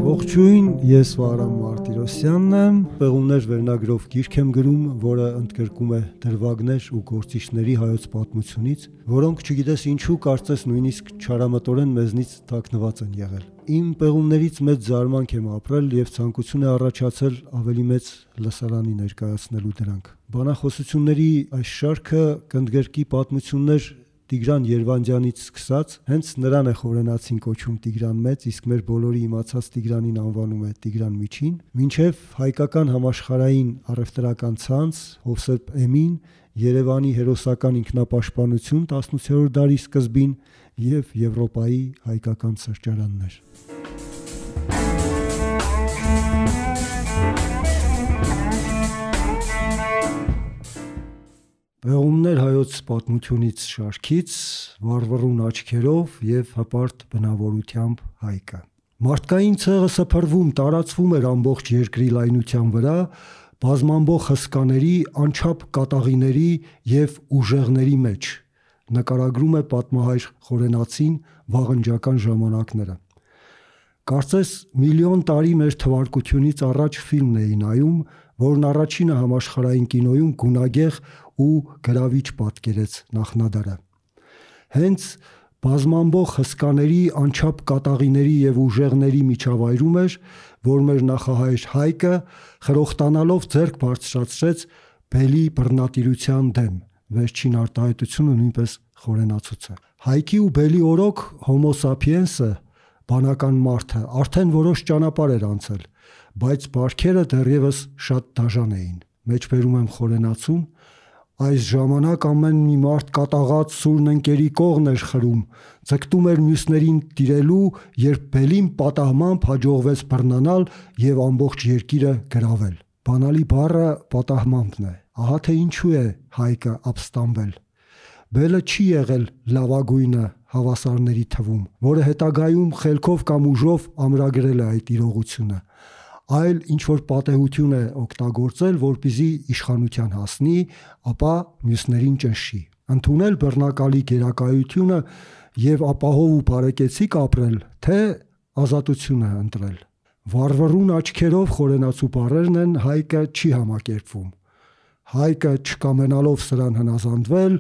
Ողջույն, ես Վահրամ Մարտիրոսյանն եմ, Պեղումներ վերնագրով գիրք եմ գրում, որը ընդգրկում է դրվագներ ու գործիչների հայոց պատմությունից, որոնք չգիտես ինչու կարծես նույնիսկ չարամտորեն մեզնից թաքնված են եղել։ Իմ պեղումներից մեծ զարմանք եմ ապրել եւ ցանկություն է առաջացել ավելի մեծ լսարանի ներկայացնելու դրանք։ Բանախոսությունների այս շարքը կընդգրկի պատմություններ Տիգրան Երվանդյանից սկսած, հենց նրան է խորենացին կոչում Տիգրան Մեծ, իսկ մեր բոլորի իմացած Տիգրանին անվանում է Տիգրան Միջին, մինչև հայկական համաշխարհային առևտրական ցանց, Հովսեփ Էմին, Երևանի հերոսական ինքնապաշտպանություն 18-րդ դարի սկզբին եւ Եվրոպայի հայկական սրճարաններ։ Պեղումներ հայոց պատմությունից շարքից վառվռուն աչքերով եւ հպարտ բնավորությամբ Հայկը։ Մարդկային ցեղը սփռվում, տարածվում էր ամբողջ երկրի լայնության վրա, բազմամբող հսկաների, անչափ կատաղիների եւ ուժեղների մեջ։ Նկարագրում է պատմահայր Խորենացին վաղնջական ժամանակները։ Կարծես միլիոն տարի մեր թվարկությունից առաջ ֆիլմն էի նայում, որն առաջինը համաշխարհային կինոյում գունագեղ ու գրավիչ պատկերեց նախնադարը։ Հենց բազմամբող հսկաների, անչափ կատաղիների եւ ուժեղների միջավայրում էր, որ մեր նախահայր Հայկը խրոխտանալով ձեռք բարձրացրեց բելի բռնատիրության դեմ։ Վերջին արտահայտությունը նույնպես խորենացուց է։ Հայքի ու բելի օրոք Homo sapiens-ը, բանական մարդը, արդեն որոշ ճանապարհ էր անցել, բայց բարքերը դեռևս շատ դաժան էին։ Մեջբերում եմ խորենացուն։ Այս ժամանակ ամեն մի մարդ կատաղած սուրն ընկերի կողն էր խրում, ձգտում էր մյուսներին տիրելու, երբ բելին պատահմամբ հաջողվեց բռնանալ եւ ամբողջ երկիրը գրավել։ Բանալի բառը պատահմամբն է։ Ահա թե ինչու է Հայկը ապստամբել։ Բելը չի եղել լավագույնը հավասարների թվում, որը հետագայում խելքով կամ ուժով ամրագրել է այդ իրողությունը, այլ ինչ-որ պատեհություն է օգտագործել, որպեսզի իշխանության հասնի, ապա մյուսներին ճնշի։ Ընդունել բռնակալի գերակայությունը եւ ապահով ու բարեկեցիկ ապրել, թե ազատությունը ընտրել։ Վառվռուն աչքերով խորենացու բառերն են Հայկը չի համակերպվում։ Հայկը չկամենալով սրան հնազանդվել,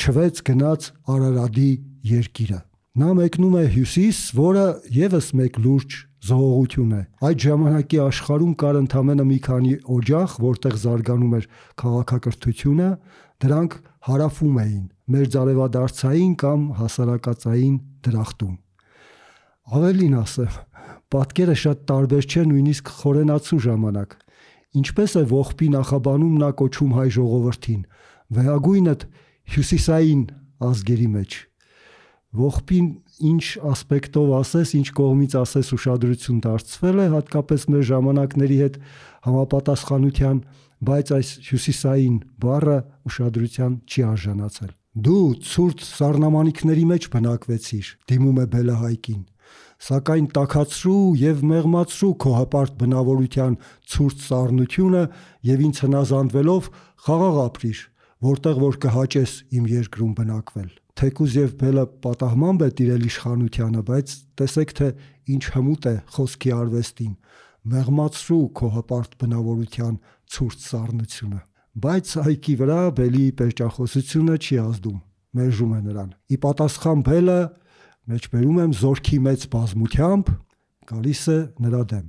չվեց գնաց Արարատի երկիրը։ Նա մեկնում է հյուսիս, որը եւս մեկ լուրջ զողողություն է։ Այդ ժամանակի աշխարհում կար ընդամենը մի քանի օջախ, որտեղ զարգանում էր քաղաքակրթությունը, դրանք հարավում էին մերձարևադարձային կամ հասարակածային դրախտում։ Ավելին ասեմ, պատկերը շատ տարբեր չէ նույնիսկ խորենացու ժամանակ։ Ինչպես է ողբի նախաբանում նա կոչում հայ ժողովրդին, վեհագույնդ հյուսիսային ազգերի մեջ։ Ողբին ինչ ասպեկտով ասես, ինչ կողմից ասես ուշադրություն դարձվել է, հատկապես մեր ժամանակների հետ համապատասխանության, բայց այս հյուսիսային բառը ուշադրության չի արժանացել։ Դու ցուրտ սառնամանիքների մեջ բնակվեցիր, դիմում է Բելը Հայկին, սակայն տաքացրու եւ մեղմացրու քո հպարտ բնավորության ցուրտ սառնությունը եւ ինձ հնազանդվելով խաղաղ ապրիր, որտեղ որ կհաճես իմ երկրում բնակվել։ Թեկուզ եւ Բելը պատահմամբ է տիրել իշխանությանը, բայց տեսեք թե ինչ հմուտ է խոսքի արվեստին, մեղմացրու քո հպարտ բնավորության ցուրտ սառնությունը։ Բայց Հայկի վրա Բելի պերճախոսությունը չի ազդում, մերժում է նրան։ Ի պատասխան Բելը, մեջբերում եմ զորքի մեծ բազմությամբ, գալիս է նրա դեմ։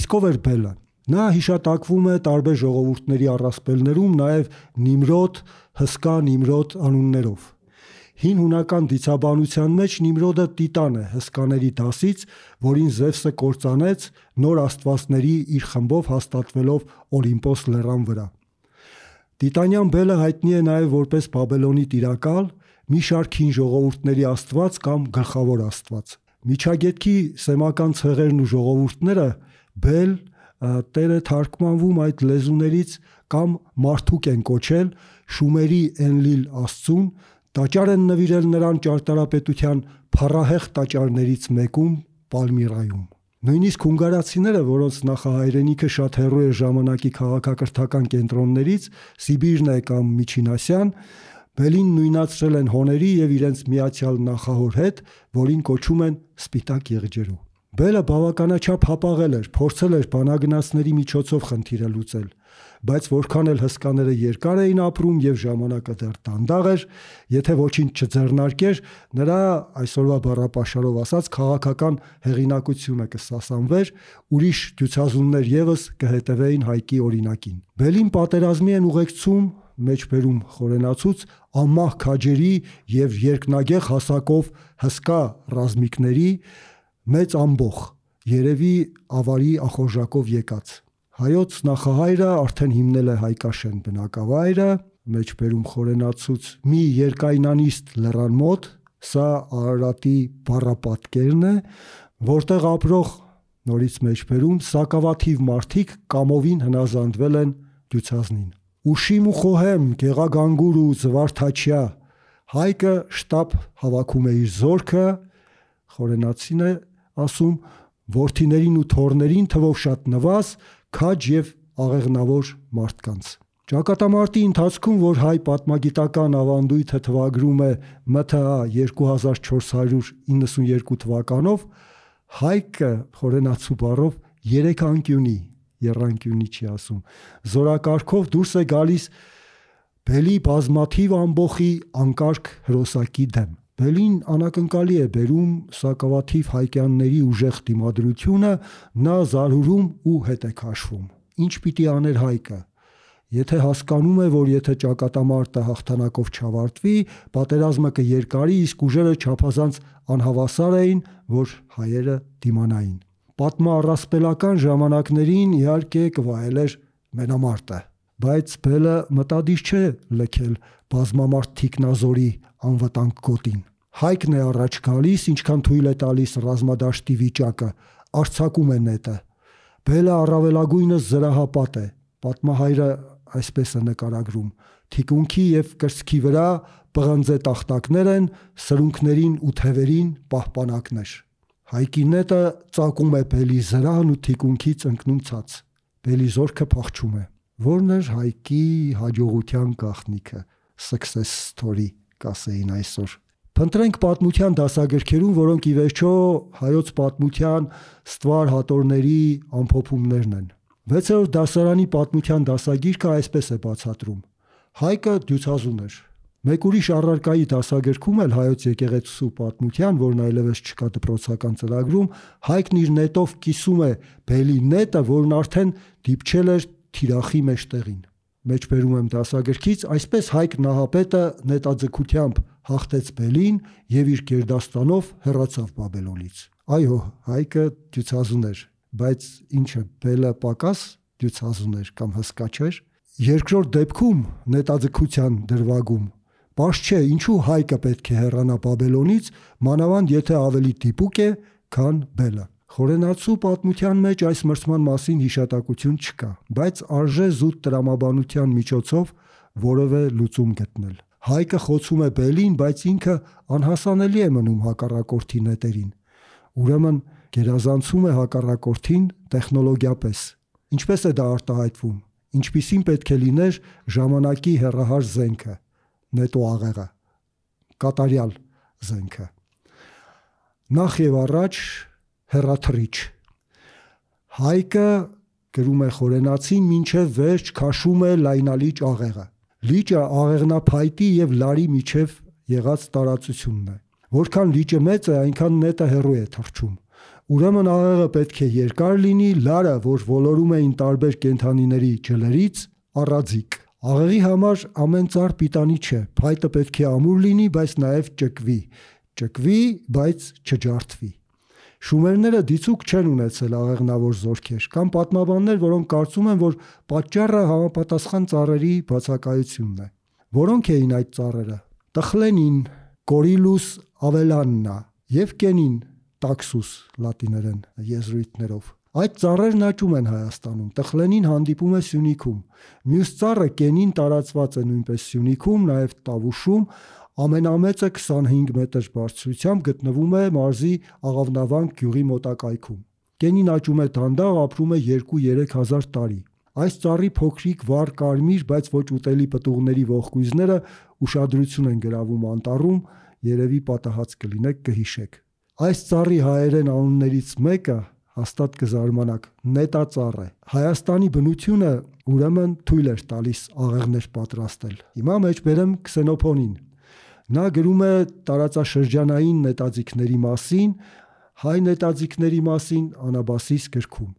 Իսկ ով էր Բելը։ Նա հիշատակվում է տարբեր ժողովուրդների առասպելներում, նաև Նիմրոդ, հսկա Նիմրոդ անուններով։ Հին հունական դիցաբանության մեջ Նիմրոդը տիտան է հսկաների դասից, որին Զևսը կործանեց նոր աստվածների իր խմբով հաստատվելով Օլիմպոս լեռան վրա։ Տիտանյան Բելը հայտնի է նաև որպես Բաբելոնի տիրակալ, մի շարք հին ժողովուրդների աստված կամ գլխավոր աստված։ Միջագետքի սեմական ցեղերն ու ժողովուրդները Բել Տերը թարգմանվում այդ լեզուներից կամ մարդուկ են կոչել Շումերի Էնլիլ աստծուն, տաճար են նվիրել նրան ճարտարապետության փառահեղ տաճարներից մեկում Պալմիրայում։ Նույնիսկ հունգարացիները, որոնց նախահայրենիքը շատ հեռու է ժամանակի քաղաքակրթական կենտրոններից, Սիբիրն է կամ Միջին Ասիան, Բելին նույնացրել են հոների եւ իրենց միացյալ նախահոր հետ, որին կոչում են Սպիտակ եղջերու։ Բելը բավականաչափ հապաղել էր, փորձել էր բանագնացների միջոցով խնդիրը լուծել, բայց որքան էլ հսկաները երկար էին ապրում եւ ժամանակը դեռ դանդաղ էր, եթե ոչինչ չձեռնարկեր, նրա այսօրվա բառապաշարով ասած քաղաքական հեղինակությունը կսասանվեր, ուրիշ դյուցազուններ եւս կհետևեին Հայկի օրինակին։ Բելին պատերազմի են ուղեկցում մեջբերում խորենացուց անմահ քաջերի եւ երկնագեղ հասակով հսկա ռազմիկների մեծ ամբոխ, երևի ավարի ախորժակով եկած։ Հայոց նախահայրը արդեն հիմնել է Հայկաշեն բնակավայրը, մեջբերում խորենացուց մի երկայնանիստ լեռան մոտ, սա Արարատի բառապատկերն է, որտեղ ապրող նորից մեջբերում սակավաթիվ մարդիկ կամովին հնազանդվել են դյուցազնին։ Ուշիմ ու խոհեմ, գեղագանգուր ու զվարթաչյա, Հայկը շտապ հավաքում է իր զորքը, խորենացին է ասում, որդիներին ու թոռներին թվով շատ նվազ, քաջ եւ աղեղնավոր մարդկանց։ Ճակատամարտի ընթացքում, որ հայ պատմագիտական ավանդույթը թվագրում է ՄԹԱ 2492 թվականով, Հայկը խորենացու բառով 3 անկյունի, եռանկյունի չի ասում, զորակարգով դուրս է գալիս Բելի բազմաթիվ ամբոխի անկարգ հրոսակի դեմ։ Բելին անակնկալի է բերում սակավաթիվ հայկյանների ուժեղ դիմադրությունը, նա զարհուրում ու հետ է քաշվում։ Ինչ պիտի աներ Հայկը։ Եթե հասկանում է, որ եթե ճակատամարտը հաղթանակով չավարտվի, պատերազմը կերկարի, իսկ ուժերը չափազանց անհավասար էին, որ հայերը դիմանային։ Պատմառասպելական ժամանակներին իհարկե կվայելեր մենամարտը, բայց Բելը մտադիր չէ լքել բազմամարդ թիկնազորի անվտանգ գոտին։ Հայկն է առաջ գալիս, ինչքան թույլ է տալիս ռազմադաշտի վիճակը, արձակում է նետը։ Բելը առավելագույնս զրահապատ է, պատմահայրը այսպես է նկարագրում. թիկունքի եւ կրծքի վրա պղնձե տախտակներ են, սրունքներին ու թևերին պահպանակներ։ Հայկի նետը ծակում է Բելի զրահն ու թիկունքից ընկնում ցած։ Բելի զորքը փախչում է։ Որն էր Հայկի հաջողության գաղտնիքը, success story կասեին այսօր։ Փնտրենք պատմության դասագրքերում, որոնք ի վերջո հայոց պատմության ստվար հատորների ամփոփումներն են։ 6-րդ դասարանի պատմության դասագիրքը այսպես է բացատրում. Հայկը դյուցազուն էր։ Մեկ ուրիշ առարկայի դասագրքում էլ հայոց եկեղեցու պատմության, որն այլևս չկա դպրոցական ծրագրում, Հայկն իր նետով կիսում է Բելի նետը, որն արդեն դիպչել էր թիրախի մեջտեղին։ Մեջբերում եմ դասագրքից, այսպես Հայկ Նահապետը նետաձգությամբ հաղթեց Բելին եւ իր գերդաստանով հեռացավ Բաբելոնից։ Այո, Հայկը դյուցազուն էր, բայց ինչը Բելը պակաս դյուցազուն էր կամ հսկա չէր։ Երկրորդ դեպքում նետաձգության դրվագում պարզ չէ ինչու Հայկը պետք է հեռանա Բաբելոնից, մանավանդ եթե ավելի դիպուկ է, քան Բելը։ Խորենացու պատմության մեջ այս մրցման մասին հիշատակություն չկա, բայց արժե զուտ տրամաբանության միջոցով որևէ լուծում գտնել։ Հայկը խոցում է Բելին, բայց ինքը անհասանելի է մնում հակառակորդի նետերին։ Ուրեմն գերազանցում է հակառակորդին տեխնոլոգիապես։ Ինչպես է դա արտահայտվում։ Ինչպիսին պետք է լիներ ժամանակի հեռահար զենքը, նետո աղեղը, կատարյալ զենքը։ Նախ եւ առաջ հեռաթռիչ։ Հայկը գրում է խորենացին մինչև վերջ քաշում է լայնալիճ աղեղը։ Լիճը աղեղնափայտի եւ լարի միջև եղած տարածությունն է։ Որքան լիճը մեծ է, այնքան նետը հեռու է թռչում։ Ուրեմն աղեղը պետք է երկար լինի, լարը, որ ոլորում էին տարբեր կենդանիների ջլերից, առաձիկ։ Աղեղի համար ամեն ծառ պիտանի չէ, փայտը պետք է ամուր լինի, բայց նաև ճկվի, բայց չջարդվի։ Շումերները դիցուկ չեն ունեցել աղեղնավոր զորքեր, կամ պատմաբաններ, որոնք կարծում են, որ պատճառը համապատասխան ծառերի բացակայությունն է։ Որոնք էին այդ ծառերը։ Տխլենին, Կորիլուս ավելաննա եւ Կենին, տաքսուս լատիներեն եզրույթներով։ Այդ ծառերն աճում են Հայաստանում։ Տխլենին հանդիպում է Սյունիքում։ Մյուս ծառը Կենին տարածված է նույնպես Սյունիքում, նաև Տավուշում, ամենամեծը 25 մետր բարձրությամբ գտնվում է մարզի Աղավնավանք գյուղի մոտակայքում։ Կենին աճում է դանդաղ, ապրում է 2-3 հազար տարի։ Այս ծառի փոքրիկ վառ կարմիր, բայց ոչ ուտելի պտուղների ողկույզները ուշադրություն են գրավում անտառում, երևի պատահած կլինեք կհիշեք։ Այս ծառի հայերեն անուններից մեկը հաստատ կզարմանաք, նետածառ է։ Հայաստանի բնությունը ուրեմն թույլ էր տալիս աղեղներ պատրաստել։ Հիմա մեջ բերեմ Քսենոփոնին։ Նա գրում է տարածաշրջանային նետաձիգների մասին, հայ նետաձիգների մասին Անաբասիս գրքում։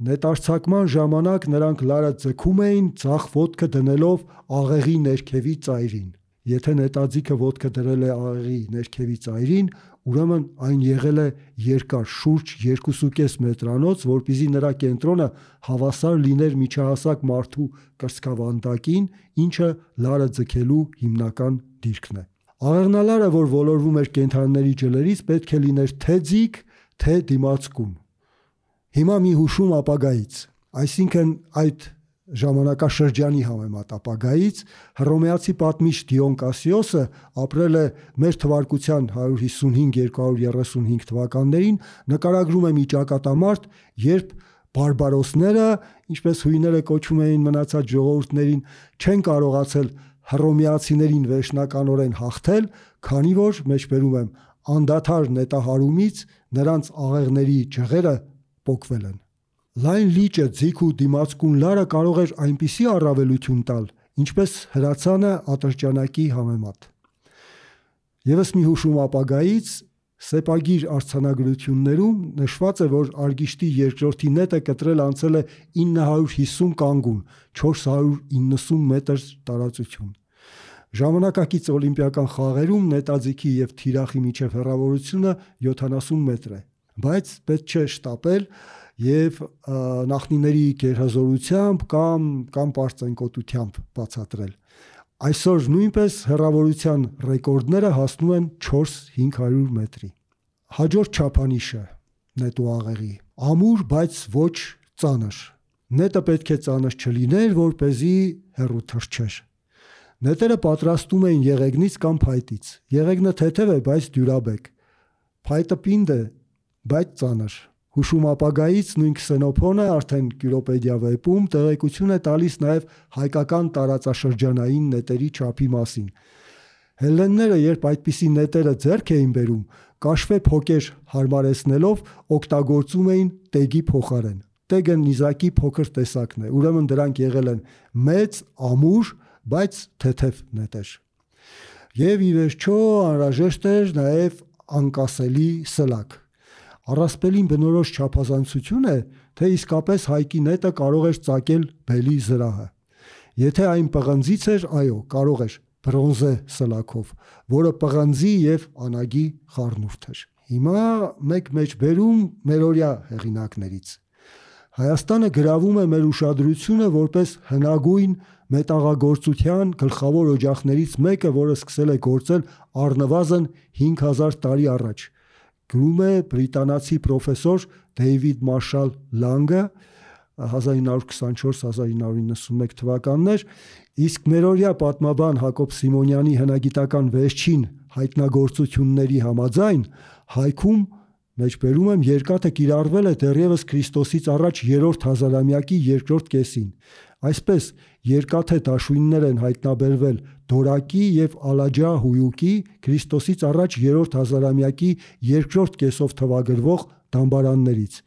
Նետարցակման ժամանակ նրանք լարը ձգում էին ձախ ոտքը դնելով աղեղի ներքևի ծայրին։ Եթե նետաձիգը ոտքը դրել է աղեղի ներքևի ծայրին, ուրեմն այն եղել է երկար, շուրջ 2.5 մետրանոց, որպեսզի նրա կենտրոնը հավասար լիներ միջահասակ մարդու կրծքավանդակին, ինչը լարը ձգելու հիմնական դիրքն է։ Աղեղնալարը, որ ոլորվում էր կենդանիների ջլերից, պետք է լիներ թե ձիգ, թե դիմացկուն։ Հիմա մի հուշում ապագայից, այսինքն այդ ժամանակաշրջանի համեմատ ապագայից, հռոմեացի պատմիչ Դիոն Կասիոսը ապրել է մեր թվարկության 155-235 թվականներին, նկարագրում է մի ճակատամարտ, երբ բարբարոսները, ինչպես հույները կոչում էին մնացած ժողովուրդներին, չեն կարողացել հռոմեացիներին վերջնականորեն հաղթել, քանի որ, մեջբերում եմ, անդադար նետահարումից նրանց աղեղների ջղերը պոկվել են։ Լայն լիճը, ձիգ ու դիմացկուն լարը կարող էր այնպիսի առավելություն տալ, ինչպես հրացանը ատրճանակի համեմատ։ Եվս մի հուշում ապագայից, սեպագիր արձանագրություններում նշված է, որ Արգիշտի երկրորդի նետը կտրել անցել է 950 կանգուն, 490 մետր տարածություն։ Ժամանակակից օլիմպիական խաղերում նետաձիգի եւ թիրախի միջև հեռավորությունը 70 մետր է, բայց պետք չէ շտապել եւ նախնիների գերհզորությամբ կամ պարծենկոտությամբ բացատրել։ Այսօր նույնպես հեռավորության ռեկորդները հասնում են 400-500 մետրի։ Հաջորդ չափանիշը նետու աղեղի ամուր, բայց ոչ ծանր։ Նետը պետք է ծանր չլիներ, որպեսզի հեռու թռչեր։ Նետերը պատրաստում էին եղեգնից կամ փայտից։ Եղեգնը թեթև է, բայց դյուրաբեկ։ Փայտը պինդ է, բայց ծանր։ Հուշում ապագայից նույն Քսենոփոնը արդեն Կյուրոպեդիա վեպում տեղեկություն է տալիս նաև հայկական տարածաշրջանային նետերի չափի մասին։ Հելլենները, երբ այդպիսի նետերը ձեռք էին բերում, կաշվե փոկեր հարմարեցնելով օգտագործում էին տեգի փոխարեն։ Տեգը նիզակի փոքր տեսակն է, ուրեմն դրանք եղել են մեծ, ամուր, բայց թեթև նետեր։ Եվ ի վերջո անհրաժեշտ էր նաև անկասելի սլակ։ Առասպելին բնորոշ չափազանցություն է, թե իսկապես հայկի նետը կարող էր ծակել բելի զրահը։ Եթե այն պղնձից էր, այո, կարող էր բրոնզե սլակով, որը պղնձի եւ անագի խառնուրդ էր։ Հիմա մեկ մեջբերում մերօրյա հեղինակներից։ Հայաստանը գրավում է մեր ուշադրությունը որպես հնագույն մետաղագործության գլխավոր օջախներից մեկը, որը սկսել է գործել առնվազն 5000 տարի առաջ։ Գրում է բրիտանացի պրոֆեսոր Դեյվիդ Մարշալ Լանգը 1924-1991 թվականներ, իսկ մերօրյա պատմաբան Հակոբ Սիմոնյանի հնագիտական վերջին հայտնագործությունների համաձայն հայքում մեջբերում եմ երկաթը կիրառվել է դեռևս Քրիստոսից առաջ 3-րդ հազարամյակի երկրորդ կեսին։ Այսպես երկաթե դաշույններ են հայտնաբերվել Դորակի եւ Ալաջա հույուկի Քրիստոսից առաջ 3-րդ հազարամյակի երկրորդ կեսով թվագրվող դամբարաններից։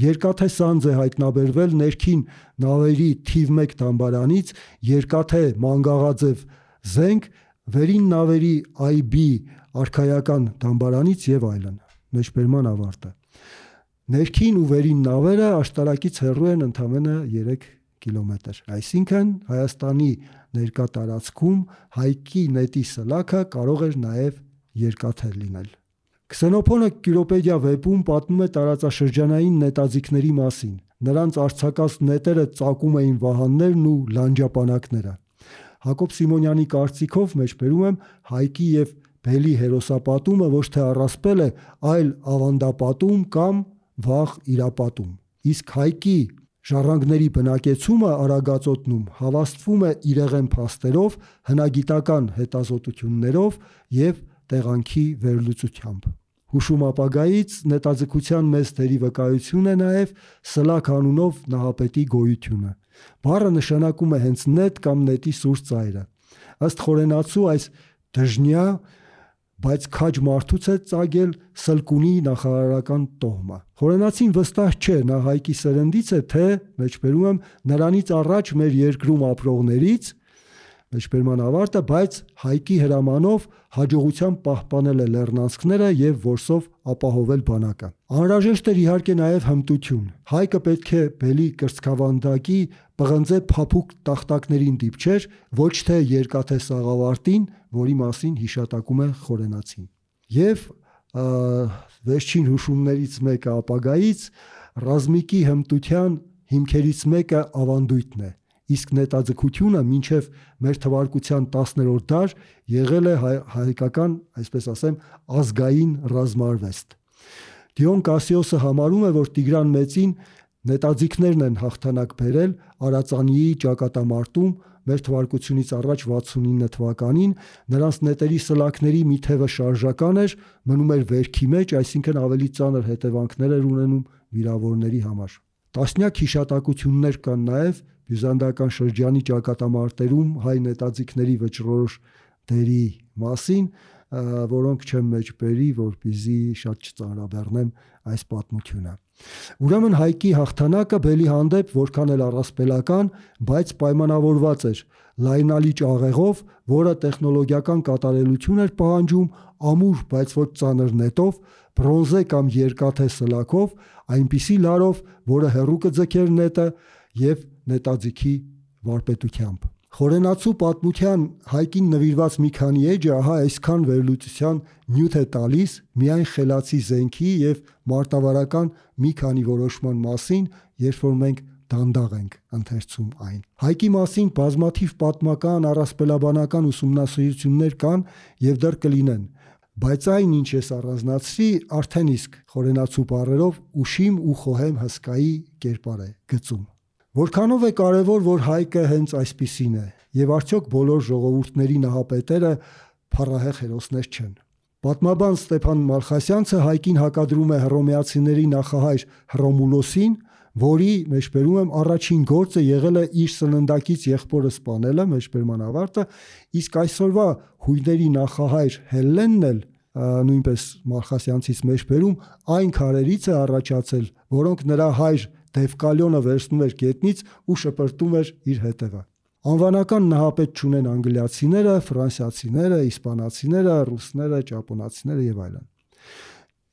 Երկաթե սանձ է հայտնաբերվել ներքին նավերի թիվ 1 դամբարանից, երկաթե մանգաղաձև զենք վերին նավերի IB արքայական դամբարանից եւ այլն։ Մեջբերման ավարտը։ Ներքին ու վերին նավերը աշտարակից հեռու են ընդամենը 3 կիլոմետր։ Այսինքն Հայաստանի ներկա տարածքում հայկի նետի սլաքը կարող էր նաև երկաթե լինել։ Քսենոփոնը Կյուրոպեդիա վեպում պատմում է տարածաշրջանային նետաձիգների մասին։ Նրանց արձակած նետերը ծակում էին վահաններն ու լանջապանակները։ Հակոբ Սիմոնյանի կարծիքով մեջբերում եմ հայկի եւ բելի հերոսապատումը ոչ թե առասպել է, այլ ավանդապատում կամ վաղ իրապատում։ Իսկ հայկի ժառանգների բնակեցումը Արագածոտնում հավաստվում է իրեղեն փաստերով, հնագիտական հետազոտություններով եւ տեղանքի վերլուծությամբ։ Հուշում ապագայից նետաձգության մեծ դերի վկայություն է նաև սլակ անունով նահապետի գոյությունը։ Բառը նշանակում է հենց նետ կամ նետի սուր ծայրը։ Ըստ խորենացու այս դժնյա բայց քաջ մարդուց է ծագել Սլկունի նախարարական տոհմը։ Խորենացին վստահ չէ նա Հայկի սերնդից է, թե մեջբերում եմ նրանից առաջ մեր երկրում ապրողներից, մեջբերման ավարտը, բայց Հայկի հրամանով հաջողությամբ պահպանել է լեռնանցքները եւ որսով ապահովել բանակը։ Անհրաժեշտ էր իհարկե նաեւ հմտություն։ Հայկը պետք է բելի կրծքավանդակի պղնձե փափուկ տախտակներին դիպչեր, ոչ թե երկաթե սաղավարտին, որի մասին հիշատակում է Խորենացին։ Եվ վերջին հուշումներից մեկը ապագայից ռազմիկի հմտության հիմքերից մեկը ավանդույթն է։ Իսկ նետաձգությունը մինչև մեր թվարկության 10-րդ դար եղել է հայկական, այսպես ասեմ, ազգային ռազմարվեստ։ Դիոն Կասիոսը համարում է, որ Տիգրան Մեծին նետաձիգներն են հաղթանակ բերել Արածանիի ճակատամարտում մեր թվարկությունից առաջ 69 թվականին, նրանց նետերի սլաքների մի թևը շարժական էր, մնում էր վերքի մեջ, այսինքն ավելի ծանր հետևանքներ էր ունենում վիրավորների համար։ Տասնյակ հիշատակություններ կան նաև բյուզանդական շրջանի ճակատամարտերում հայ նետաձիգների վճռորոշ դերի մասին, որոնք չեմ մեջբերի, որպեսզի շատ չծանրաբեռնեմ այս պատմությունը։ Ուրեմն Հայկի հաղթանակը բելի հանդեպ որքան էլ առասպելական, բայց պայմանավորված էր լայնալի ճաղեղով, որը տեխնոլոգիական կատարելություն էր պահանջում, ամուր, բայց ոչ ծանր նետով, բրոնզե կամ երկաթե սլաքով, այնպիսի լարով, որը հեռու կձգեր նետը եւ նետաձիգի վարպետությամբ։ Խորենացու պատմության Հայկին նվիրված մի քանի էջը ահա այսքան վերլուծության նյութ է տալիս միայն խելացի զենքի եւ մարտավարական մի քանի որոշման մասին, երբ որ մենք դանդաղ ենք ընթերցում այն։ Հայկի մասին բազմաթիվ պատմական, առասպելաբանական ուսումնասիրություններ կան եւ դեռ կլինեն, բայց այն, ինչ ես առանձնացրի, արդեն իսկ խորենացու բառերով ուշիմ ու խոհեմ հսկայի կերպար է գծում։ Որքանով է կարևոր, որ Հայկը հենց այսպիսին է, եւ արդյոք բոլոր ժողովուրդների նահապետերը փառահեղ հերոսներ չեն։ Պատմաբան Ստեփան Մալխասյանցը Հայկին հակադրում է հռոմեացիների նախահայր Հռոմուլոսին, որի մեջբերում եմ առաջին գործը եղել է իր սննդակից եղբորը սպանելը, մեջբերման ավարտը, իսկ այսօրվա հույների նախահայր Հելլենն էլ նույնպես Մալխասյանցից մեջբերում այն քարերից է առաջացել, որոնք նրա հայր Դևկալյոնը վերցնում էր գետնից ու շպրտում էր իր հետևը։ Անվանական նահապետ չունեն անգլիացիները, ֆրանսիացիները, իսպանացիները, ռուսները, ճապոնացիները եւ այլն։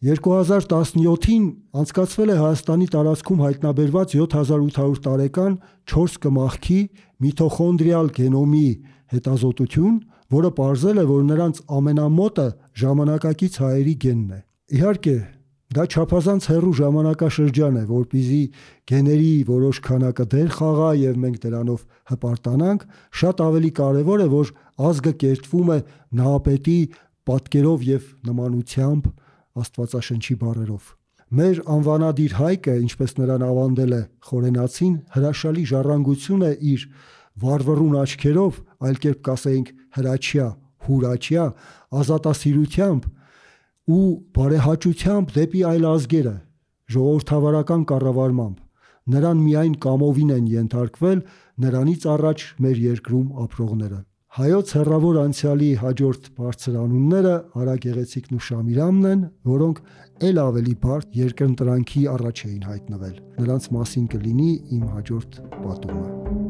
2017-ին անցկացվել է Հայաստանի տարածքում հայտնաբերված 7800 տարեկան 4 կմախքի միտոխոնդրիալ գենոմի հետազոտություն, որը պարզել է, որ նրանց ամենամոտը ժամանակակից հայերի գենն է։ Իհարկե, դա չափազանց հեռու ժամանակաշրջան է, որպեսզի գեների որոշ քանակը դեր խաղա եւ մենք դրանով հպարտանանք, շատ ավելի կարեւոր է, որ ազգը կերտվում է նահապետի պատկերով եւ նմանությամբ Աստվածաշնչի բառերով։ Մեր անվանադիր Հայկը, ինչպես նրան ավանդել է Խորենացին, հրաշալի ժառանգություն է իր վառվռուն աչքերով, այլ կերպ կասեինք հրաչյա, հուրաչյա, ազատասիրությամբ ու բարեհաճությամբ դեպի այլ ազգերը, ժողովրդավարական կառավարմամբ։ Նրան միայն կամովին են ենթարկվել նրանից առաջ մեր երկրում ապրողները։ Հայոց հեռավոր անցյալի հաջորդ բարձր անունները Արա Գեղեցիկն ու Շամիրամն են, որոնք ել ավելի բարդ երկընտրանքի առաջ էին հայտնվել։ Նրանց մասին կլինի իմ հաջորդ պատումը։